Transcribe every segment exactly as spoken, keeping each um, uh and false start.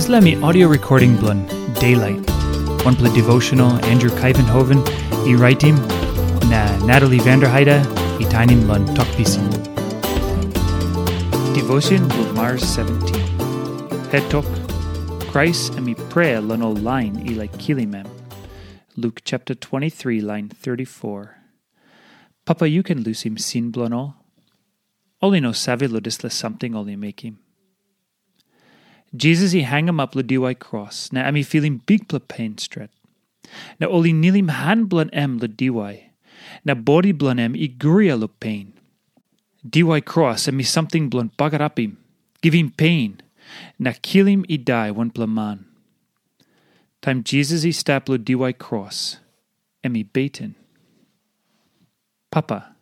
Dispela mi audio recording bilong Daylight, wanpela devotional Andrew Kaivenhoven i raitim, na Natalie Vanderheide i tainim long Tok Pisin. Devotion bilong Mars seventeen. Het tok, Krais em i prea long ol lain i laik kilim em. Luk chapter twenty-three, line thirty-four. Papa, yu ken lusim sin bilong ol. Ol i no save long dispela samting ol i mekim. Jisas i hangamap long diwai kros, na em i filim bikpela pen stret. Na ol i nilim han bilong em long diwai, na bodi bilong em i guria long pen. Diwai kros em i samting bilong bagarapim, givim pen, na kilim i dai wanpela man. Taim Jisas i stap long diwai kros, em i beten. Papa,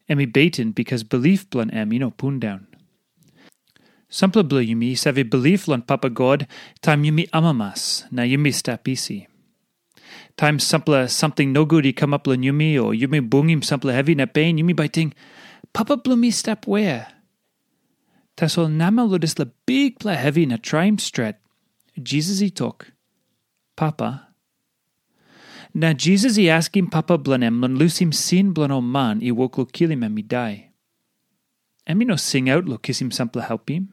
em i beten bikas bilip bilong em i no pundaun. Sampela bilong yumi i save bilip long Papa God taim yumi amamas na yumi stap isi. Taim sampela samting nogut i kamap long yumi o yumi bungim sampela hevi na pen, yumi bai ting, "Papa bilong mi stap wea?" Tasol namel long dispela bikpela hevi na traim stret, Jisas i tok, "Papa." Na Jisas i askim Papa bilong em long lusim sin bilong ol man i wok long kilim em i dai. Em i no singaut long kisim sampela helpim.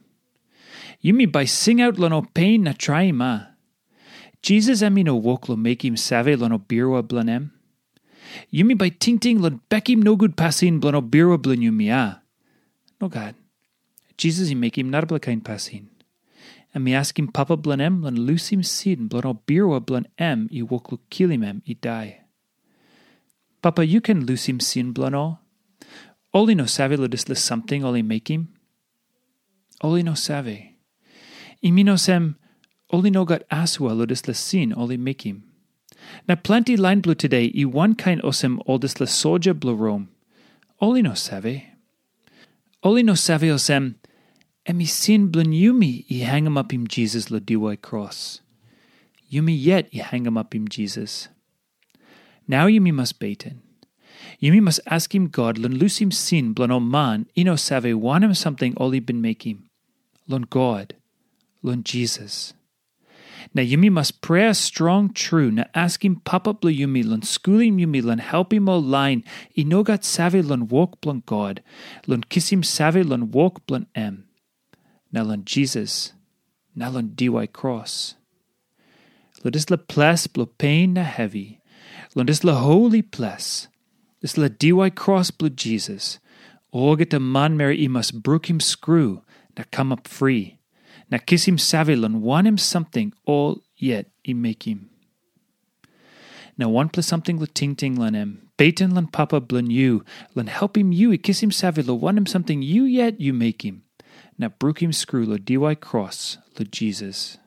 Yumi bai singaut long ol pen na traim, a? Jisas em i no wok long mekim save long ol birua bilong em. Yumi bai tingting long bekim nogut pasin bilong ol birua bilong yumi, a? Nogat. Jisas i mekim narapela kain pasin. Em i askim Papa bilong em long lusim sin bilong ol birua bilong em i wok long kilim em i dai. Papa, yu ken lusim sin bilong ol. Ol i no save long dispela samting ol i mekim. Ol i no save. I mean olsem, ol i no gat asua long dispela sin ol i mekim. Na planti lain bilong tude i wankain olsem ol dispela soja bilong Rom. Ol i no save. Ol i no save olsem, em i sin bilong yumi i hangamapim Jisas long diwai kros. Yumi yet i hangamapim Jisas. Nau yumi mas beten. Yumi mas askim God long lusim sin bilong ol man i no save wanem samting ol i bin mekim, long God, long Jisas. Na yumi mas prea strong tru na askim Papa bilong yumi long skulim yumi long helpim ol lain i no gat save long wok bilong God, long kisim save long wok bilong em, na long Jisas, na long diwai kros. Long dispela ples bilong pen na hevi, long dispela holi ples, dispela diwai kros bilong Jisas, olgeta manmeri i mas brukim skru na kamap fri, na kisim save long wanem samting ol yet i mekim. Na wanpela samting long tingting long em, beten long Papa bilong yu, long helpim yu i kisim save long wanem samting yu yet yu mekim, na brukim skru long diwai kros long Jisas.